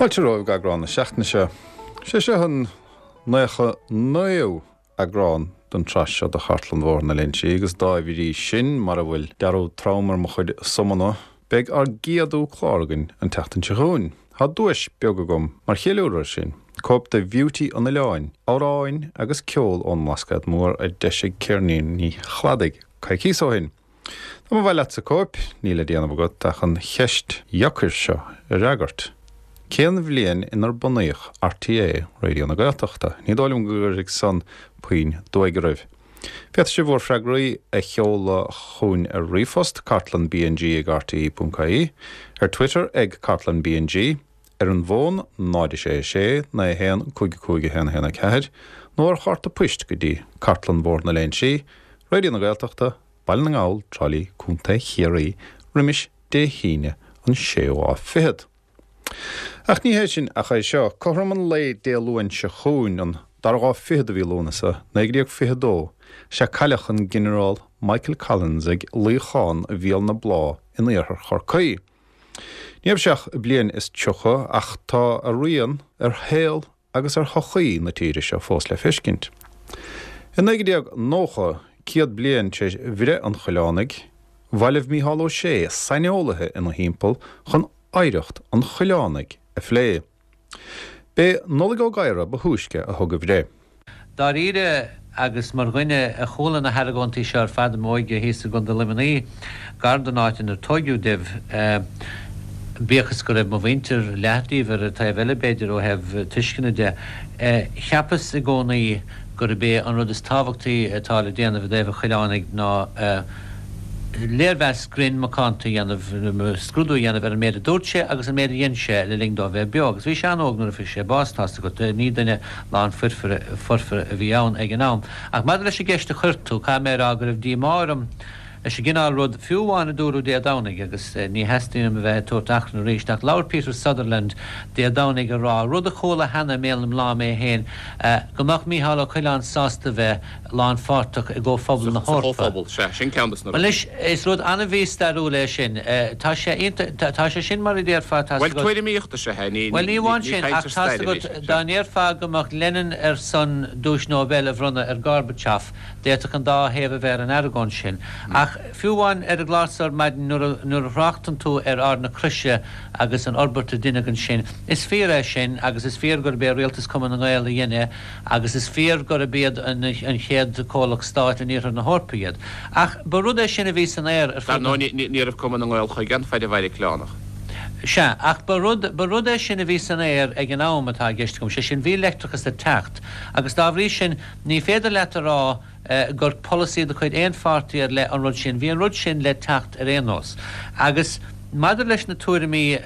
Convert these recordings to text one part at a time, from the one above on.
Fáilte romhaibh go eagrán na seachtaine seo. Sé seo an 99ú eagrán den tsraith seo de Chartlann Bhóthar na Léinsí agus dá bhrí sin, mara bhfuil dearúd trom ar mo chuid sumanna, beidh ár gcéadú clár againn an tseachtain seo chugainn. Tá duais beag agam mar cheiliúradh air sin, cóip de Bheauty an Oileáin, amhráin agus ceol ón mBlascaod Mór a d'eisigh Ceirníní Chladaigh coicíos ó shin. Dá mba mhaith leatsa cóip, níl le déanamh agat ach an cheist dheacair seo a fhreagairt, Cén bhliain inar bunaíodh RTÉ Raidió na Gaeltachta? Ní dóigh liom go gcuirfidh san puinn duaidh oraibh. Féadfaidh sibh bhur freagraí a sheoladh chugainn ar ríomhphost, cartlannbng ag rte.ie, ar Twitter ag cartlannbng, ar an bhfón 0 6 6 9 1 5 5 1 1 4, nó ar chárta poist go dtí Cartlann Bhóthar na Léinsí, Raidió na Gaeltachta, Baile na nGall, Trá Lí, Co. Chiarraí, roimis Dé hAoine an séú lá fichead. Ach ní hé sin ach é seo, cothrom an lae Dé Luain seo chugainn, an dara lá fichead de mhí Lúnasa, 1922, sea cailleadh an Ginearál Michael Collins ag luíochán Bhéal na Blá in iarthar Chorcaí. Ní raibh sé ach bliain is 30 ach tá a rian ar shaol agus ar shochaí na tíre seo fós le feiscint. I 1990, 100 bliain tar éis bhreith an Choileánaigh, bhailigh Mícheál Ó Sé saineolaithe ina thimpeall chun oidhreacht an Choileánaigh a phlé. B'é Nollaig Ó Gadhra ba thúisce a thug a bhreith. Dáiríre, agus mar dhuine a chuala na hargóintí seo ar fad i m'óige thíos i gContae Luimnigh, gar don áit inar tóigeadh domh, bíodh is go raibh mo mhuintir, leath díobh, ar an taobh eile b'fhéidir ó thaobh tuisceana de, cheapas i gcónaí gurb é an rud is tábhachtaí atá le déanamh i dtaobh an Choileánaigh ná léirmheas grinn macánta a dhéanamh, scrúdú a dhéanamh ar an méid a dúirt sé agus an méid a dhein sé le linn dó bheith beo. Agus bhí sé an-óg nuair a fuair sé bás, tá's agat. Ní duine lán foirfe a bhí ann ag an am. Ach maidir leis an gceist a chuir tú, caithfidh mé a rá go raibh díomá orm leis an gcineál rud, fiú amháin a dúradh Dé Domhnaigh, agus ní theastaíonn uaim a bheith ag tabhairt achrann arís, ach labhair Peter Sutherland Dé Domhnaigh ag rá, rud a chuala cheana i mbéal na mná mé féin, go mbeadh Micheál Ó Coileáin sásta bheith lánpháirteach i gComhphobal na Sa hEorpa. Chomhphobal, sea, sin ceann de na Bhuel anois, is rud an-mhístairiúil é sin. Tá sé iontach, tá sé sin mar a déarfá, tá's Bhuel, agat. tuairimíocht is ea é, ní, Bhuel, ní ní, amháin ní sin, caint ach ar tá's stair a bhí agat, sé, dá sea. ndéarfá go mbeadh Lenin ar son Duais Nobel a bhronnadh ar Gorbachev, d'fhéadfadh an dá thaobh a bheith ar an argóint sin. Ach fiú amháin ar an gclár so ar maidin, nuair a, nuair a thráchtann tú ar Ard na Croise agus an fhorbairt a deineadh ansin, is fíor é sin agus is fíor gurb é Rialtas Cumann na nGael a dhein é, agus is fíor gurb iad an chéad comhlacht stáit in iarthar na hEorpa iad. Ach ba rud é sin a bhí san aer ar Dar fud na. ndóigh, ní raibh Cumann na nGael chuige an faid a mhair an Coileánach. Sea, ach ba rud, ba rud é sin a bhí san aer ag an am atá i gceist agam, sé sin, bhí leictreachas ag teacht, agus dá bhrí sin, ní féidir leat a rá gur polasaí de chuid aon pháirtí ar leith an rud sin. Bhí an rud sin le teacht ar aon nós. Agus maidir leis na tuairimí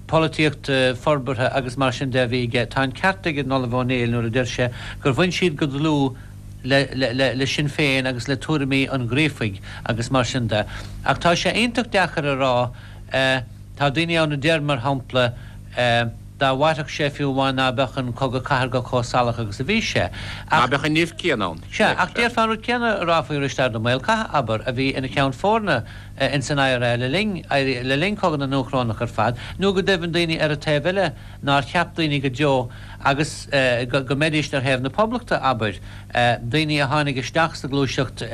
polaitíochta, forbartha agus mar sin de a bhí aige, tá an ceart ag an Ollamh Ó Néill nuair a deir sé gur bhain siad go dlúth le, le, le Sinn Féin agus le tuairimí an Ghríofaigh agus mar sin de. Ach tá sé iontach deacair a rá, tá daoine ann a deir, mar shampla, Dá mhairfeadh sé fiú amháin ná beadh an cogadh cathartha chomh salach agus a bhí sé. Ná Ach. beadh an nimh céanna ann. Sea, ach déarfá an rud céanna a rá faoi Risteard Ó Maolchatha, abair, a bhí ina cheann foirne ins an IRA le linn, le linn Cogadh na nDúchrónach ar fad, nó go deimhin daoine ar an taobh eile nár cheap daoine go deo agus go, go mbeidíst ar thaobh na Poblachta, abair, daoine a tháinig isteach sa ghluaiseacht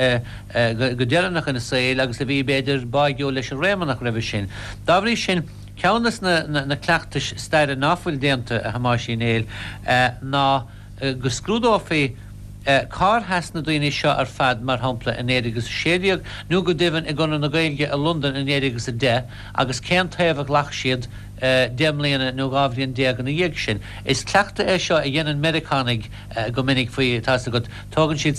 go, go deireanach ina saol agus a bhí, b'fhéidir, báigiúil leis an Réamonnach roimhe sin. Dá bhrí sin. Ceann de na cleachtais staire ná fuil déanta, a Thomáis Uí Néill, ná go scrúdófaí cár sheas na daoine seo ar fad, mar shampla, i 1916, nó go deimhin i gConradh na Gaeilge i Londain i 1910, agus cén taobh a ghlac siad deich mbliana nó 12 bhliain ina dhiaidh sin. Is cleachtadh é seo a dhéanann Meiriceánaigh go minic faoi, tá's agat, tógann siad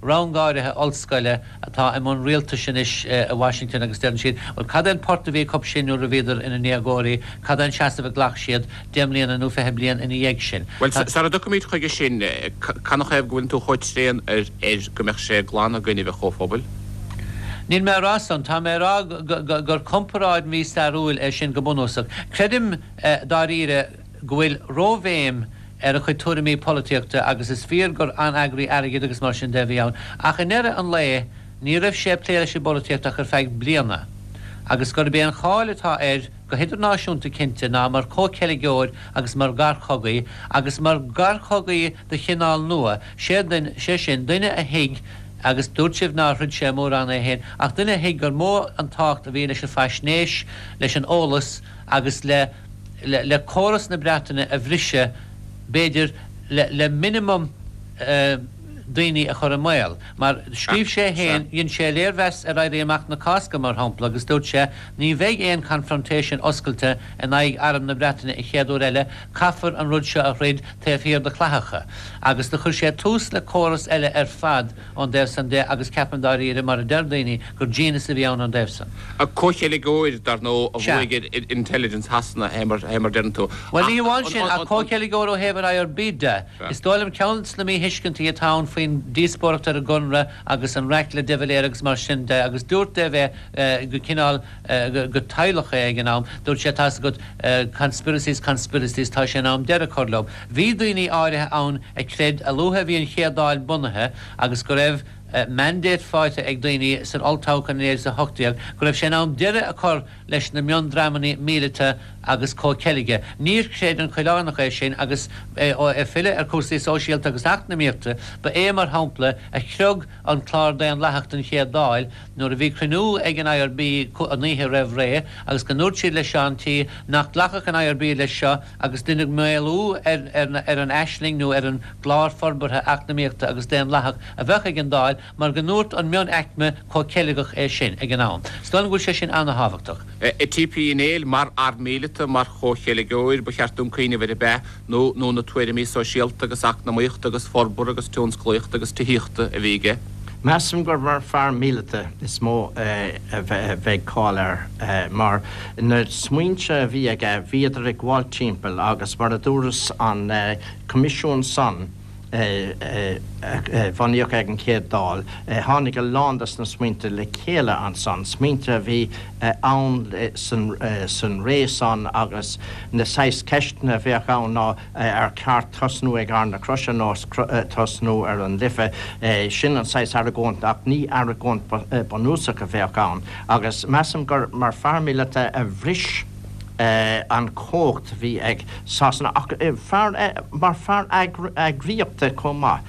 rang áirithe ollscoile, atá i mbun rialtais anois i Washington agus deireann siad, bhuel, cad é an port a bhí acu sin nuair a bhíodar ina ndéagóirí, cad é an seasamh a ghlac siad deich mbliana nó 20 bliain ina dhiaidh sin? Bhuel, sara dtiocfaimid chuige sin, canathaobh go bhfuileann tú chomh tréan air go mbeadh sé glan i gcoinnibh an Chomhphobail? Níl mé ag rá san. Tá mé ag rá gur comparáid mhístairiúil é sin go bunúsach. Creidim, dáiríre, go bhfuil róbhéim ar a chuid tuairimí polaitíochta agus is fíor gur an-eagraí airgid agus mar sin de a bhí ann ach i ndeireadh an lae ní raibh sé ag plé leis an bpolaitíocht ach ar feadh bliana agus gurb é an cháil atá air. go hidirnáisiúnta cinnte, ná mar chomhcheilgeoir agus mar gharchogaí, agus mar gharchogaí de chineál nua, sé sin, duine a thuig, agus dúirt sibh nár throid sé mórán é féin, ach duine a thuig gur mó an tábhacht a bhí leis an bhfaisnéis, leis an eolas agus le le córas na Breataine a bhriseadh, b'fhéidir, le le minimum daoine a chur i mbaol. Mar scríobh sé féin, dhein sé léirmheas ar Éirí Amach na Cásca, mar shampla, agus dúirt sé, Ní bheidh aon confrontation oscailte in aghaidh Arm na Breataine an chéad uair eile, caithfear an rud seo a throid taobh thiar de chlathacha. Agus do chuir sé tús le córas eile ar fad ón dtaobh san de agus ceapaim dáiríre, mar a deir daoine, gur genius a bhí ann ón dtaobh san. Comhcheilgeoir, dar ndóigh, a bhuaigh ar intelligence Shasana, fé mar a deireann tú. Bhuel, ní hamháin sin, ach comhcheilgeoir ó thaobh an IRB de. Is dóigh liom ceann de na míthuiscintí atá ann faoin díospóireacht ar an gConradh agus an raic le de Valera agus mar sin de, agus dúirt de bheith go cineál go tadhlach é ag an am, dúirt sé tá's agat conspiracies, conspiracies, tá sé in am deireadh a chur leo. Bhí daoine áirithe ann a chreid a luaithe a bhí an chéad Dáil bunaithe agus go raibh mandate faighte ag daoine san olltoghchán in 1918 go raibh sé in am deireadh a chur leis na miondreamanna míleata agus comhcheilge. Níor chreid an Coileánach é sin agus é ag filleadh ar chúrsaí sóisialta agus eacnamaíochta, ba é, mar shampla, a chriog an clár daonlathach don Chéad Dáil nuair a bhí cruinniú ag an IRB an oíche roimh ré agus go ndúirt siad le Seán T nach nglacfadh an IRB leis seo agus deineadh maolú ar an aisling nó ar an gclár forbartha eacnamaíochta agus daonlathach a bheadh ag an Dáil mar go ndúirt an mionaicme comhcheilgeach é sin ag an am. Is dóigh liom go bhfuil sé sin ana-thábhachtach. T.P. Uí Néill, Mar fhear míleata, mar chomhcheilgeoir, ba cheart dúinn cuimhneamh air ab ea, nó nó na tuairimí sóisialta agus eacnamaíochta agus forbartha agus tionsclaíochta agus tithíochta a bhí aige. Measaim gur mar fear míleata is mó a bheidh cáil air, mar na smaointe a bhí aige, bhíodar ag gabháil timpeall agus mar a dúras an coimisiún san, a bunaíodh ag an Chéad Dáil, tháinig a lán des na smaointe le chéile ansan, smaointe a bhí ann san ré san agus na saghas ceisteanna a bheadh ann ná ar cheart tosnú ag Ard na Croise nó tosnú ar an Life, sin an saghas argóint ach ní argóint bunúsach a bheadh ann agus measaim gur mar fear míleata a bhris an chumhacht a bhí ag Sasana ach fear, mar fear eagraíochta chomh maith.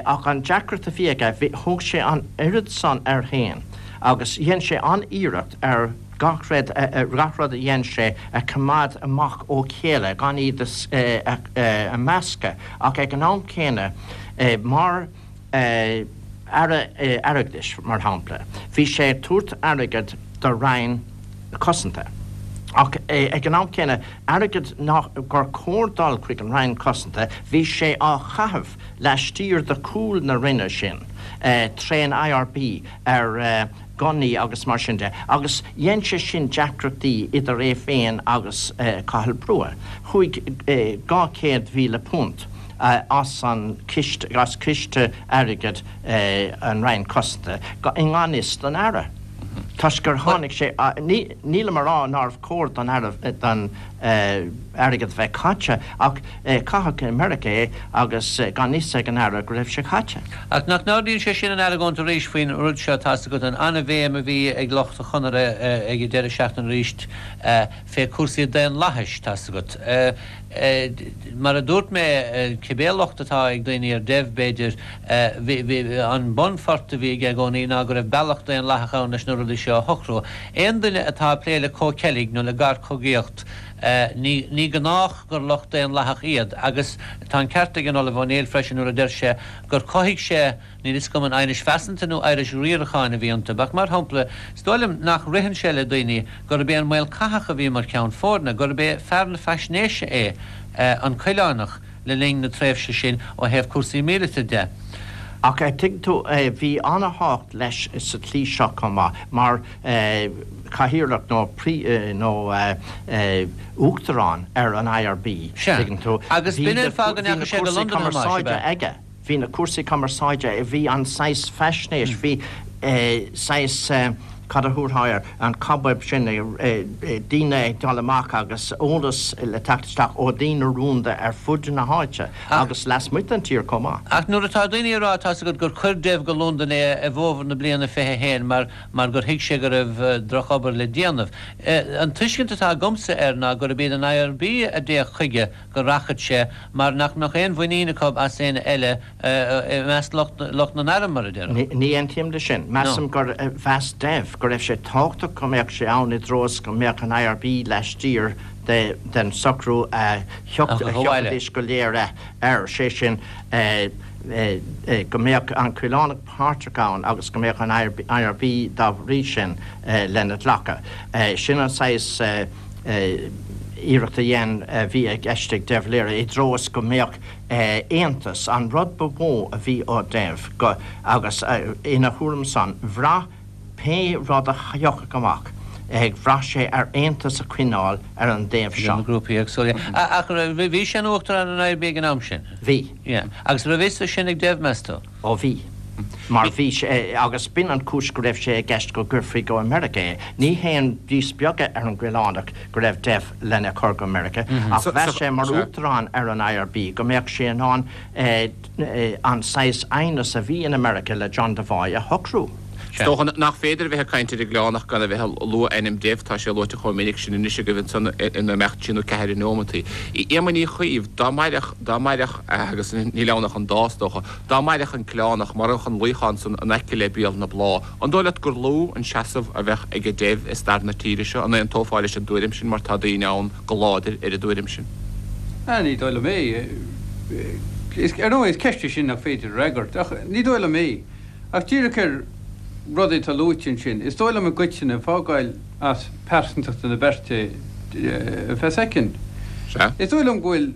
Ach an deacracht a bhí aige, thóg sé an oiread san air féin agus dhein sé an-iarracht ar gach rud, gach rud a dhein sé a choimeád amach ó chéile, gan iad a meascadh ach ag an am céanna mar Aire Airgeadais, mar shampla, bhí sé ag tabhairt airgead do Roinn Cosanta ach ag an am céanna, airgead nach, gur chóir dul chuig an Roinn Cosanta, bhí sé á chaitheamh laistiar de chúl na Roinne sin, trén IRB ar gunnaí agus mar sin de, agus dhein sé sin deacrachtaí idir é féin agus Cathal Brugha. Chuaigh £200,000 as an chiste, as ciste airgid an Roinn Cosanta i ngan fhios don Aire, toisc gur tháinig sé, nílim a rá nárbh chóir don Aire, don airgead a bheith caite, ach caitheadh i Meiriceá é agus gan fhios ag an Aire go raibh sé caite. Ach nach n-ardaíonn sé sin an argóint arís faoin rud seo, tá's agat, an an-bhéim a bhí ag lucht an Chonartha ag an deireadh seachtaine arís fé cúrsaí daonlathais, tá's agat. Mar a dúirt mé, cibé locht atá ag daoine ar Dev, b'fhéidir, bhí, an bunphort a bhí aige i gcónaí ná go raibh bealach daonlathach ann leis na rudaí seo a shocrú. Aon duine atá ag plé le comhcheilg nó le garchogaíocht, ní, ní gnách gur lucht daonlathach iad. Agus tá an ceart ag an Ollamh Ó Néill freisin nuair a deir sé gur chothaigh sé, Níl fhios agam an aighnis phearsanta nó aighnis riaracháin a bhí iontu, ach mar shampla, is dóigh liom nach ritheann sé le daoine gurb é an Maol Cathach a bhí mar cheann foirne, gurb é fear na faisnéise é an Coileánach le linn na tréimhse sin ó thaobh cúrsaí míleata de. Ach tuigeann tú, bhí ana-thábhacht leis sa tslí seo chomh maith, mar chathaoirleach nó nó uachtarán ar an IRB, Sea, tuigeann tú, agus bhí b'in na an fáth go bhí na ndeachaigh sé go cúrsaí Londain, a Thomáis, ab cumarsáide ea? aige. Bhí na cúrsaí cumarsáide, bhí an saghas faisnéis, bhí saghas. Cad a thabharfá air? An cobweb sin, daoine ag dul amach agus eolas le teacht isteach ó dhaoine rúnda ar fud na háite agus lasmuigh den tír chomh maith. Ach nuair atá daoine ag rá, tá's agat, gur chuir Dev go Londain é i bhfómhar na bliana 21 mar mar gur thuig sé go raibh drochobair le déanamh. An tuiscint atá agamsa air ná gurb iad an IRB a d'fhéach chuige go rachadh sé mar nach mbeadh aon mhuinín acu as éinne eile i measc lucht na n-arm, mar a déarfá. Ní aontaím leis sin. Measaim gur mheas Dev go raibh sé tábhachtach go mbeadh sé ann i dtreo is go mbeadh an IRB laistiar den socrú a thiocfaidís go léir air, sé sin go mbeadh an Coileánach páirteach ann agus go mbeadh an IRB dá bhrí sin lena ghlacadh. Sin an saghas iarracht a dhein, a bhí i gceist ag de Valera i dtreo is go mbeadh aontas, an rud ba mhó a bhí ó Dev go, agus ina thuairim san, bhraith pé rud a thiocfadh amach, bhraith sé ar aontas a choinneáil ar an dtaobh seo. Idir na grúpaí éagsúla. Ach bhí sé ina Uachtarán ar an IRB ag an am sin? Bhí. Yeah. Agus raibh fhios sin ag Dev, meas tú? Ó bhí. Mar bhí sé, agus b'in an chúis go raibh sé i gceist go gcuirfí go Meiriceá é. Ní haon díspeagadh ar an gCoileánach go raibh Dev lena chur go Meiriceá, ach mheas sé mar uachtarán ar an IRB go mbeadh sé in ann an saghas aighneas a bhí in America le John Devoy a shocrú. Is dócha nach féidir a bheith ag caint ar an gCoileánach gan a bheith ag lua ainm Dev, tá sé luaite chomh minic sin anois agaibh ansan in imeacht trí nó ceathair neomataí. Éamonn Uí Chuív, dá mairfeadh, dá mairfeadh, agus níl ann ach an dá is dócha, Dá mairfeadh an Coileánach, maireadh an luíochán san in aice le béal na Blá, an dóigh leat gur lú an seasamh a bheadh aige Dev i stair na tíre seo? An aontófá leis an dtuairim sin mar tá daoine ann go láidir ar an dtuairim sin? Ní dóigh liom é. Ar ndóigh, is ceist í sin nach féidir a fhreagairt, ach ní dóigh liom é. Ach díreach ar rudaí atá luaite ansin, is dóigh liom i gcoitinne, fágáil as pearsantachta na beirte ar feadh soicind, is dóigh liom go bhfuil,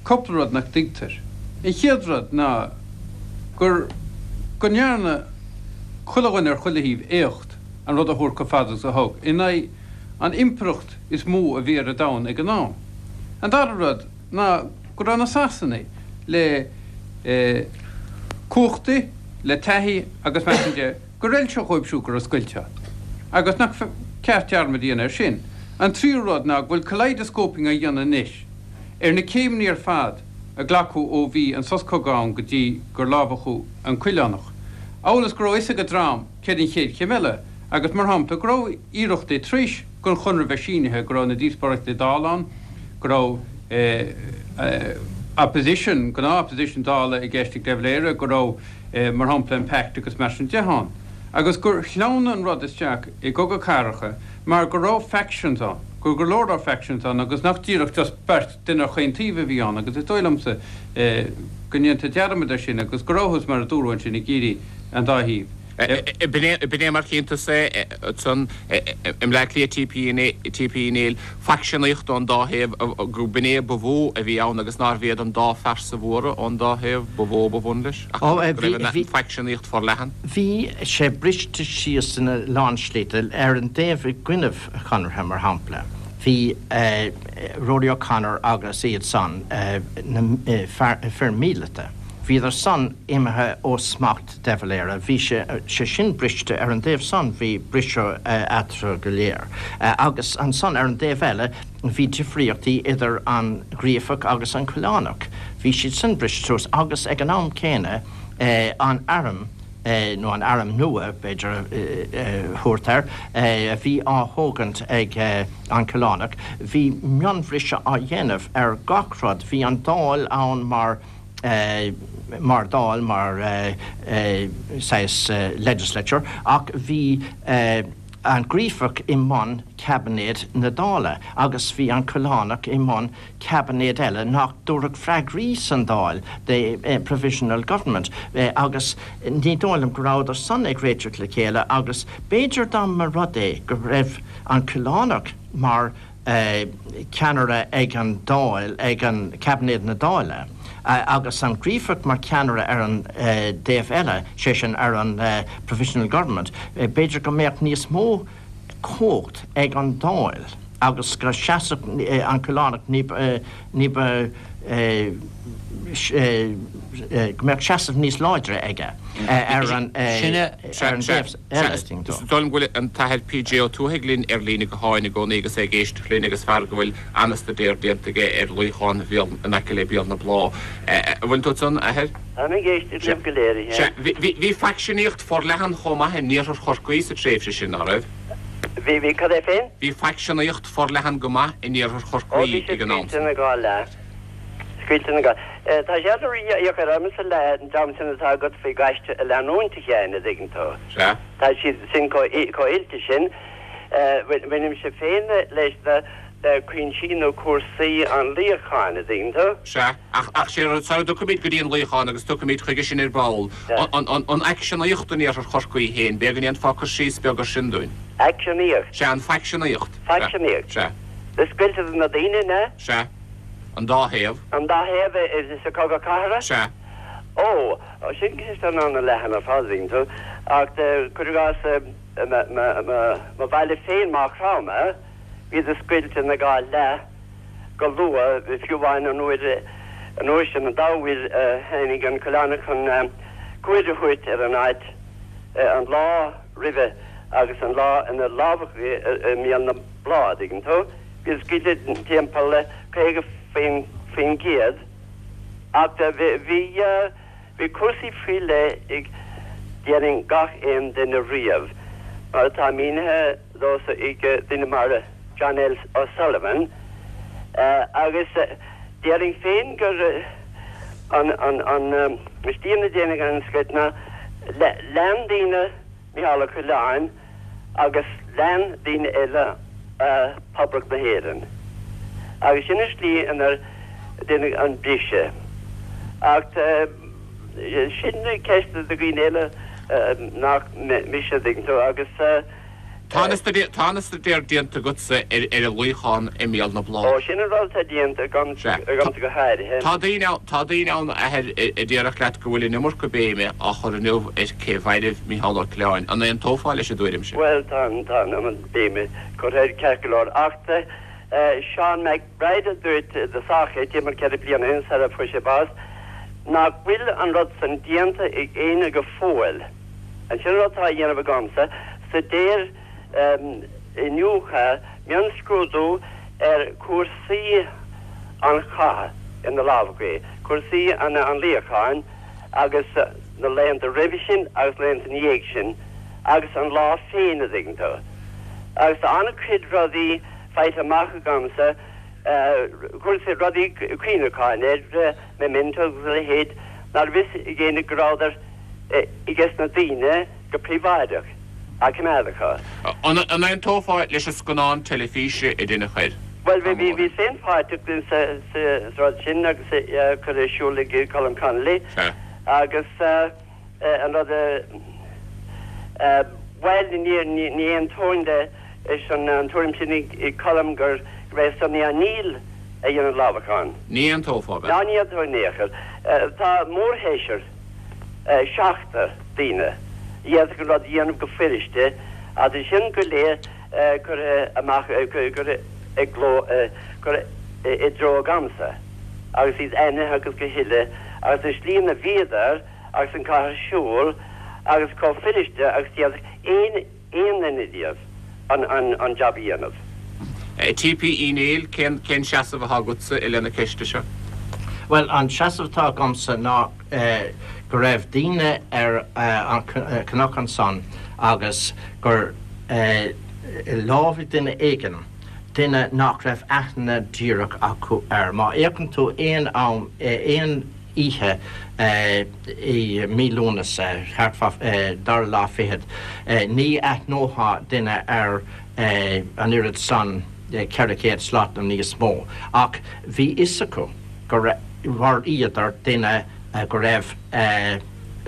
cúpla rud nach dtuigtear. An chéad rud ná gur go ndearna chuile dhuine ar chuile thaobh éacht an rud a thabhairt chomh fada agus a thug, in aghaidh an impireacht is mó a bhí ar an domhan ag an am. An dara rud ná go raibh na Sasanaigh le cumhachtaí, le taithí agus mar sin de, gur fheil sé dhóibh siúd go raibh scoilt ann agus nach ceart dearmad a dhéanamh air sin. An tríú rud ná go bhfuil kaleidoscoping á dhéanamh anois ar na céimeanna ar fad a glacadh ó bhí an sos cogaidh ann go dtí gur lámhachadh an Coileánach, amhail is go raibh a fhios ag an dream céard an chéad chéim eile agus, mar shampla, go raibh iarrachtaí tar éis don Chonradh bheith sínithe, go raibh na díospóireachtaí Dála ann, go raibh opposition, gnáth-opposition Dála i gceist ag de Valera, go raibh, mar shampla, an Pact agus mar sin de ann. Agus gur shleamhnaigh an rud isteach i gcogadh cathartha mar go raibh factions ann, go raibh go leor leor factions ann agus nach díreach just beirt duine ar chaon taobh a bhí ann agus is dóigh liomsa go ndéantar dearmad air sin agus go rabhthas, mar a dúradh ansin, ag iarraidh an dá thaobh. B'in é mar chíonn tusa é ansan i mBleá Cliath T.P. Uí Néill, faicseanaíocht ón dá thaobh, go b'in é ba mhó a bhí ann agus nárbh iad an dá phearsa mhóra ón dá thaobh ba mhó ba bhun leis ach go raibh an faicseanaíocht forleathan. Bhí sé briste síos ina lán slite. Ar an dtaobh i gcoinnibh Chonartha, mar shampla, bhí Rory O'Connor agus iad san, na fir míleata, bhíodar san imithe ó smacht de Valera. Bhí sé sin briste ar an dtaobh san, bhí briseadh eatarthu go léir. Agus ansan ar an dtaobh eile bhí difríochtaí idir an Gríofach agus an Coileánach. Bhí siad san briste suas agus ag an am céanna an arm, nó an arm nua b'fhéidir a thabhairt air, a bhí á thógaint ag an Coileánach, bhí mionbhriseadh á dhéanamh ar gach rud. Bhí an Dáil ann mar mar Dáil, mar saghas legislature, ach bhí an Gríofach i mbun caibinéad na Dála agus bhí an Coileánach i mbun caibinéad eile nach dtabharfadh freagraí san Dáil, the provisional government, agus ní dóigh liom go rabhadar san ag réiteach le chéile agus b'fhéidir dá mba rud é go raibh an Coileánach mar ceannaire ag an Dáil, ag an Caibinéad na Dála, agus an Gríofach mar cheannaire ar an dtaobh eile, sé sin ar an Provisional Government, b'fhéidir go mbeadh níos mó cumhacht ag an Dáil. agus go seasfadh an Coileánach ní ba, ní ba, go mbeadh seasamh níos láidre aige ar an dtaobh eile. Is dóigh liom go bhfuil an tAthair PJ Ó Tuathaigh linn ar líne gutháin i gcónaí agus é ag éisteacht linn agus fear go bhfuil an-staidéar déanta aige ar luíochán Bhéal, in aice le Béal na Blá. An bhfuil tú ansan, a Athair? Táim ag éisteacht libh go léir, a Sea. Bhí faicseanaíocht forleathan chomh maith in iarthar Chorcaí sa tréimhse sin, ná raibh? Bhí, bhí, cad é féin? Bhí faicseanaíocht forleathan go maith in iarthar Ó, Chorcaí bhí sé ag an am scaoilte san. ina dhá leath. Scaoilte ina dhá. Tá sé an-dheacair ormsa le an dream sin atá agat faoi ghaiste a leanúint, a Sheáin, a dtuigeann tú. Sea. Tá siad sin chomh oilte sin. Bainimse féin leis na le cuinsí nó cúrsaí an luíocháin, a dtuigeann tú. Sea. Ach, ach sé rud, sara dtiocfaimid go dtí an luíochán, agus tiocfaimid chuige sin ar ball, an, an, an fhaicseanaíocht in iarthar Chorcaí féin, b'fhéidir go ndéanfá cur síos beag ar sin dúinn. Aicseanaíocht? Sea, an faicseanaíocht. Faicseanaíocht? Sea. Na scoilteadh na daoine, an ea? Sea. An dá thaobh. An dá thaobh sa chogadh cathartha? Sea. Ó, sin ceist an-leathan ar fad, a dtuigeann tú. Ach cuir i gcás, mo bhaile féin, Maigh Chromtha, bhíodar scoilte ina dhá leath go luath, fiú amháin an uair an uair sin, an dá uair a tháinig an Coileánach chun cuaird a thabhairt ar an áit, an lá roimhe agus an lá ina lámhachadh é i mBéal na Blá, a dtuigeann tú. Bhíodar scoilte timpeall 50%, ach bhí, bhí cúrsaí faoi leith ag, déarfainn, gach aon duine riamh, mar atá mínithe domhsa ag duine mar John L. O'Sullivan, agus déarfainn féin gur an, an, an slí ina dtéann an scoilt ná lean daoine Micheál Ó Coileáin agus lean daoine eile Poblacht na hÉireann. Agus sin an slí inar deineadh an briseadh. Ach sin ceist do dhaoine eile nach mise, an dtuigeann tú, agus. Tá an-staidéar déanta agatsa ar an luíochán i mBéal na Blá. Ó, sin an rud atá déanta agamsa go háirithe. Tá daoine ann, tá daoine ann, a Athair, a déarfadh leat go bhfuil an iomarca béime á chur inniu ar cé mhairbh Micheál Ó Coileáin. An aontófá leis an dtuairim sin? Bhuel, tá an, tá an iomad béime curtha air ceart go leor. Ach Seán Mac Bride a dúirt i dtosach é, timpeall 4 bliana ó shin sara fuair sé bás, nach bhfuil an rud san déanta ag éinne go fóill. Sin an rud atá á dhéanamh agamsa, staidéar, iniúchadh, mionscrúdú ar chúrsaí an chatha ina lámhach, cúrsaí an luíocháin agus na laethanta roimhe sin agus na laethanta ina dhiaidh sin agus an lá féin, a dtuigeann tú. Agus tá an-chuid rudaí faighte amach agamsa, cúrsaí, rudaí cuimhneacháin ar mementos agus a leithéid, ná raibh fhios ag éinne go rabhadar ages na daoine go príobháideach á coimeád acu. An aontófá leis an scannán teilifíse a deineadh air? Bhuel, bhíos féin páirteach sa rud sin agus é curtha ar siúl ag Colm Connolly agus an rud a, bhuel, ní aontóinn leis an tuairim sin ag Colm gur é Sonny O'Neill a dhein an lámhachán. Ní aontófá, ab ea? Ná ní aontóinn in aon chor. Tá mórsheisear. seachtar daoine a d'fhéadfadh an rud a dhéanamh go fuiriste ach tá sin go léir curtha amach, curtha i gcló, curtha i dtreo agamsa agus iad ainmnithe agus go huile agus an slí ina bhíodar agus an cath ar siúl agus chomh fuiriste agus d'fhéadfadh aon aon duine díobh an jab a dhéanamh. T.P. Uí Néill, cén cén seasamh atá agatsa i leith na ceiste seo? Bhuel, an seasamh atá agamsa ná go raibh daoine ar an cnoc ansan agus gur lámhaigh duine éigin, duine nach raibh aithne díreach acu air. Má fhéachann tú aon am, aon. oíche i mí Lúnasa, thart fá dara lá fichead, ní aithneofá duine ar an oiread san, 400 slat nó níos mó, ach bhí fhios acu gur mharaíodar duine go raibh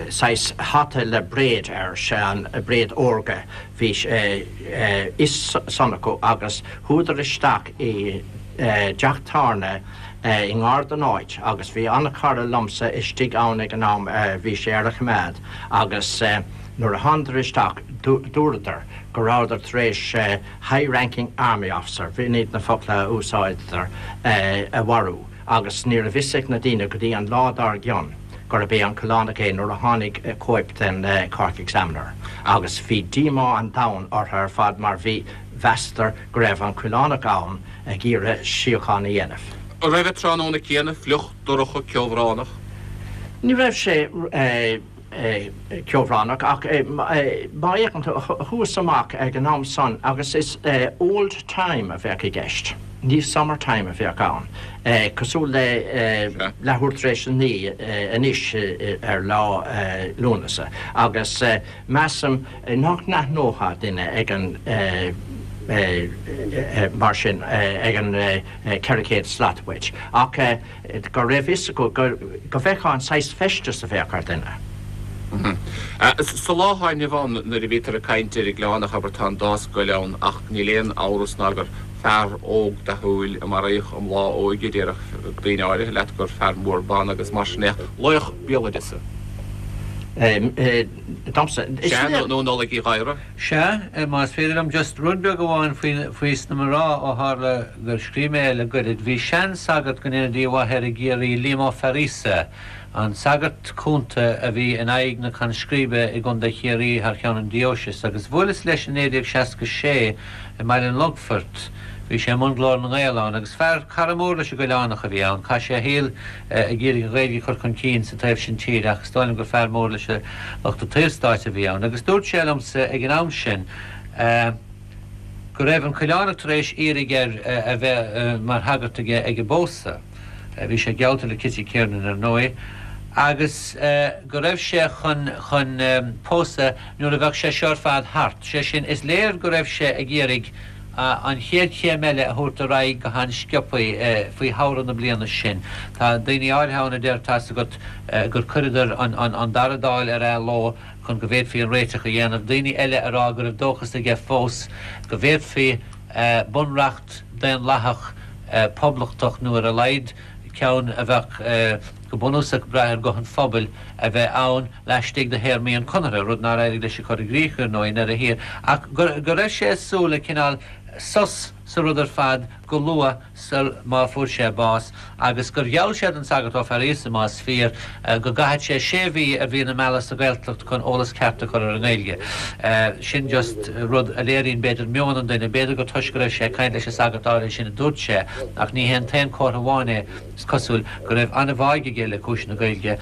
saghas hata le bréid air, sé an bréid órga, bhí fhios san acu agus chuadar isteach i dteach tábhairne. i ngar don áit agus bhí an-chara liomsa istigh ann ag an am, bhí sé ar a choimeád agus nuair a thánadar isteach dúradar go rabhadar tar éis high ranking army officer, b'in iad na focla a úsáideadar, a mharú agus ní raibh fhios ag na daoine go dtí an lá dár gcionn gurb é an Coileánach é nuair a tháinig cóip den Cork Examiner agus bhí díomá an domhain orthu ar fad mar bhí, mheasadar go raibh an Coileánach ann ag iarraidh síocháin a dhéanamh. An raibh an tráthnóna céanna fliuch, dorcha, ceobhránach? Ní raibh sé ceobhránach ach má fhéachann tú, chuas amach ag an am san agus is old time a bheadh i gceist, ní summer time a bheadh ann, cosúil le leathuair tar éis a naoi anois ar lá Lúnasa agus measaim nach n-aithneofá duine ag an mar sin ag an 400 slat uait ach go raibh fhios acu go bhfeicfeá an saghas feistis a bheadh ar dhuine. Sa lá atá inniu ann nuair a bhítear ag caint ar an gCoileánach, abair, tá an dá scoil ann ach níl aon amhras ná gur fear óg dathúil a maraíodh i mbláth a óige, déarfadh daoine áirithe leat gur fear mór ban agus mar sin é ach laoch béaloideasa. Domsa, is Sea, nó Nollaig Uí Ghadhra. Sea, más féidir liom just rud beag amháin faoi sna mná ó tharla gur scríobh mé é le goirid. Bhí sean-sagart go ndéana Dia a mhaith air i gCiarraí, Liam Ó Fearaíosa, an sagart cúnta a bhí in aghaidh na conscríbe i gContae Chiarraí thar cheann an dióisis, agus bhuaileas leis i 1966 i mBaile an Longfoirt. Bhí sé i mbun Glór na nGael ann, agus fear cara mór leis an gCoileánach a bhí ann. Chaith sé a shaol ag iarraidh an Ghaeilge a chur chun cinn sa taobh sin tíre ach is dóigh liom gur fear mór leis an lucht an tSaorstáit a bhí ann. Agus dúirt sé liomsa ag an am sin go raibh an Coileánach tar éis iarraidh air a bheith mar shagart aige ag an bpósadh, bhí sé geallta le Kitty Kiernan ar ndóigh, agus go raibh sé chun chun pósadh nuair a bheadh sé seo ar fad thart. Sé sin, is léir go raibh sé ag iarraidh an chéad chéim eile a thabhairt ar aghaidh go han-sciobthaí faoi shamhradh na bliana sin. Tá daoine áirithe ann a deir, tá's agat, gur chuireadar an dara Dáil ar athló chun go bhféadfaí an réiteach a dhéanamh, daoine eile a rá go raibh dóchas aige fós go bhféadfaí bunreacht daonlathach poblachtach nó ar a laghad ceann a bheadh go bunúsach ag brath ar ghuth an phobail a bheith ann laistigh de théarmaí an Chonartha, rud nár éirigh leis a chur i gcrích, ar ndóigh, i ndeireadh thiar, ach go raibh sé ag súil le cineál sos sa rud ar fad go luath sul má fuair sé bás, agus gur gheall sé don Sagart Ó Fearaíosa, más fíor, go gcaithfeadh sé sé mhí ar mhí na meala sa Ghaeltacht chun eolas ceart a chur ar an nGaeilge. Sin just rud a léiríonn, b'fhéidir, meon an duine. B'fhéidir gur toisc go raibh sé ag caint leis an sagart áirithe sin a dúirt sé, ach ní hé an t-aon chomhartha amháin é. Is cosúil go raibh an-bháidh aige le cúis na Gaeilge,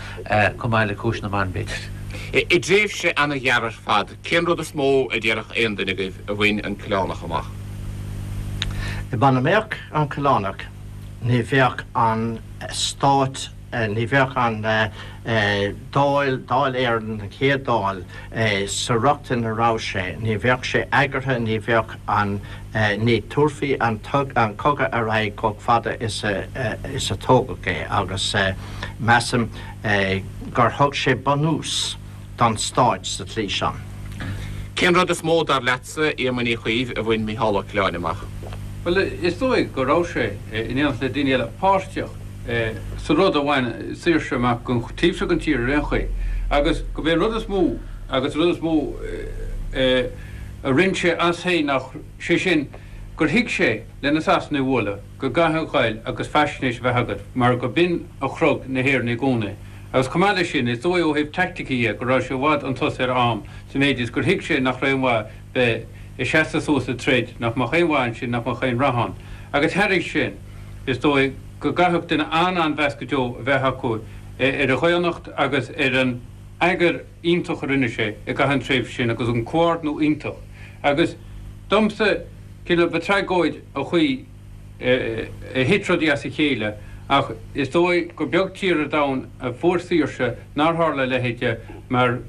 chomh maith le cúis na mban, b'fhéidir. I dtréimhse ana-ghearr ar fad, cén rud is mó a déarfadh aon duine agaibh a bhain an Coileánach amach? Muna mbeadh an Coileánach, ní bheadh an stát, ní bheadh an Dáil, Dáil Éireann, an chéad Dáil, sa riocht ina raibh sé, ní bheadh sé eagraithe, ní bheadh an, ní tabharfaí an cogadh ar aghaidh chomh fada is a tógadh é agus measaim gur thug sé bunús don stáit sa tslí sin. Cén rud is mó, dar leatsa, Éamoinn Uí Chuív, a bhain Micheál Ó Coileáin amach? Bhuel, is dóigh go raibh sé, in éineacht le daoine eile, páirteach sa rud a bhain saoirse amach don taobh seo den tír ar aon chaoi agus gurb é an rud is mó agus an rud is mó a rinne sé as féin ná, sé sin, gur thuig sé, le na Sasanaigh a bhualadh, go gcaithfeá ghoil agus faisnéis a bheith agat mar go b'in a chrog na hÉireannaigh i gcónaí. Agus chomh maith leis sin, is dóigh ó thaobh teaicticí dhe go raibh sé i bhfad chun tosaigh ar a am sa mhéid is gur thuig sé nach raibh aon mhaith bheith ag seasamh suas ag troid, nach mbeadh aon mhaith ansin, nach mbeadh aon rath ann. Agus thairis sin, is dóigh go gcaithfeadh duine an-an-mheas go deo a bheith acu ar a dhaonnacht agus ar an eagar iontach a rinne sé i gcaitheamh an tréimhse sin agus an comhordnú iontach. Agus domsa, cineál, ba tragóid an chaoi a thit rudaí as a chéile ach is dóigh gur beag tír ar domhan a fuair saoirse nár tharla a leithéid de mar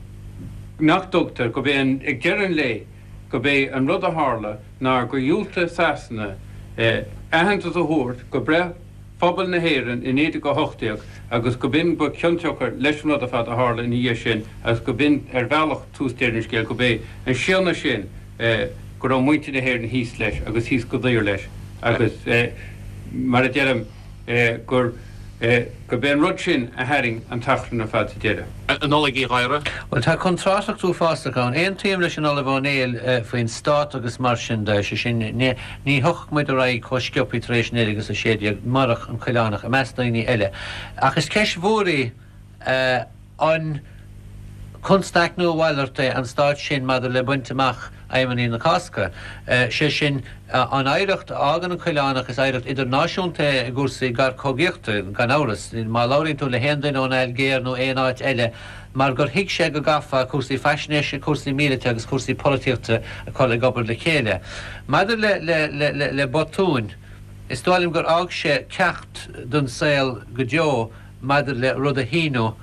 nach dtugtar, gurb é an, ag deireadh an lae, gurb é an rud a tharla ná gur dhiúltaigh Sasana aitheantas a thabhairt go breith phobal na hÉireann i 1918 agus go b'in ba chionsiocair leis an rud ar fad a tharla ina dhiaidh sin agus go b'in ar bhealach tús deireadh an scéil, gurb é an séanadh sin go raibh muintir na hÉireann thíos leis agus thíos go daor leis agus mar a deirim. gur gurb é an rud sin a tharraing an t-achrann ar fad sa deireadh. A Nollaig Uí Ghadhra. Bhuel, tá contrárthacht uafásach ann. Aontaím leis an Ollamh Ó Néill faoin stát agus mar sin de, sé sin, ní thiocfadh muid ar aghaidh chomh sciobthaí tar éis 1916 murach an Coileánach, i measc daoine eile. Ach is ceist mhór í an constaic nó a mhalairt é an stát sin maidir le baint amach aidhmeanna na Cásca. Sé sin, an oidhreacht a fhágann an Coileánach, is oidhreacht idirnáisiúnta é i gcúrsaí garchogaíochta, gan amhras. Má labhraíonn tú le haon duine ón Ailgéir nó aon áit eile, mar gur thuig sé go gcaithfeá cúrsaí faisnéise, cúrsaí míleata agus cúrsaí polaitíochta a chur ag obair le chéile. Maidir le le botúin, is dóigh liom gur fhág sé ceacht don saol go deo, maidir le rud a shíniú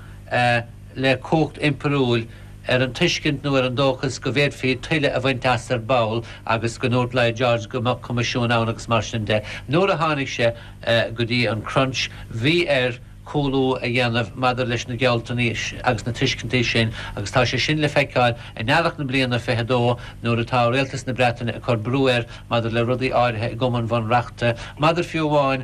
le cumhacht impiriúil ar an tuiscint nó ar an dóchas go bhféadfaí tuilleadh a bhaint as ar ball agus go ndúirt Lloyd George go mbeadh coimisiún ann agus mar sin de. Nuair a tháinig sé go dtí an crunch bhí air cúlú a dhéanamh maidir leis na gealltanais agus na tuiscintí sin agus tá sé sin le feiceáil in earrach na bliana 22 nuair atá Rialtas na Breataine ag cur brú air maidir le rudaí áirithe i gCumann Bhunreachta, maidir fiú amháin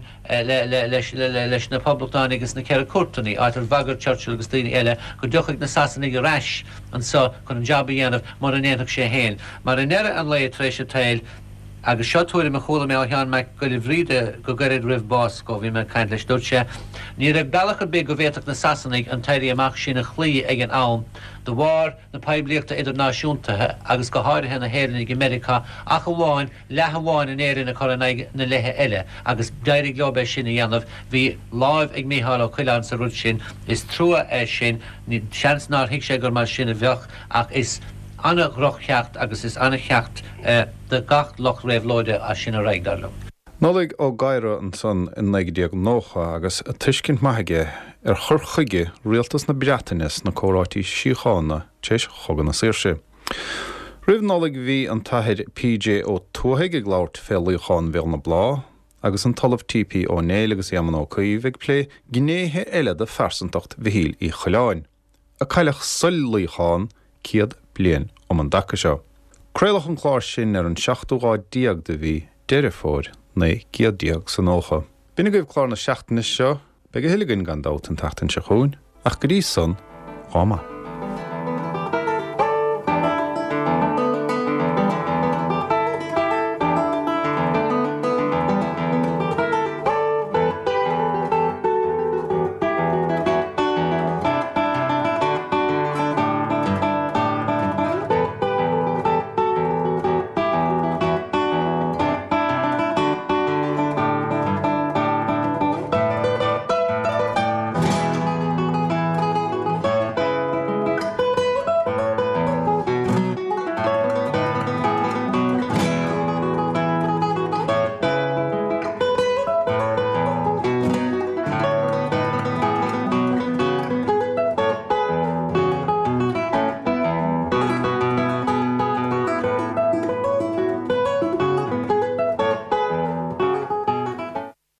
leis na Poblachtánaigh agus na Ceithre Cúirteanna, áit ar bhagair Churchill agus daoine eile go dtiocfadh na Sasanaigh ar ais anso chun an jab a dhéanamh mura ndéanfadh sé féin. Mar i ndeireadh an lae, tar éis an tsaoil, agus seo tuairim a chuala mé ó Sheán Mac Giolla Bhríde go gairid roimh bás dhó, bhí mé ag caint leis, dúirt sé, ní raibh bealach ar bith go bhféadfadh na Sasanaigh an t-éirí amach sin a chloí ag an am de bharr na poiblíochta idirnáisiúnta agus go háirithe na hÉireannaigh i Meiriceá ach amháin leath amháin in Éirinn a chur in aghaidh na leithe eile agus d'éirigh leo é sin a dhéanamh. Bhí láimh ag Mícheál Ó Coileáin sa rud sin. Is trua é sin. Seans nár thuig sé gur mar sin a bheadh ach is an-dhroch-cheacht agus is an-cheacht do gach lucht réabhlóide as sin ar aghaidh, dar liom. Nollaig Ó Gadhra ansan in 1990 agus tuiscint maith aige ar chur chuige rialtas na Breataine sna comhráití síochána tar éis Chogadh na Saoirse. Roimh Nollaig bhí an tAthair P.J. Ó Tuathaigh ag labhairt fé luíochán Bhéal na Blá agus an tOllamh T.P. Ó Néill agus Éamonn Ó Cuív ag plé gnéithe eile de phearsantacht Mhichíl Uí Choileáin, a cailleadh sul luíochán 100 bliain um an dtaca seo. Craoladh an clár sin ar an seachtú lá déag de mhí Deireadh Fómhair, 1990. B'in agaibh clár na seachtaine seo. Beidh a thuilleadh againn gan dabht an tseachtain seo chugainn, ach go dtí san, lá maith.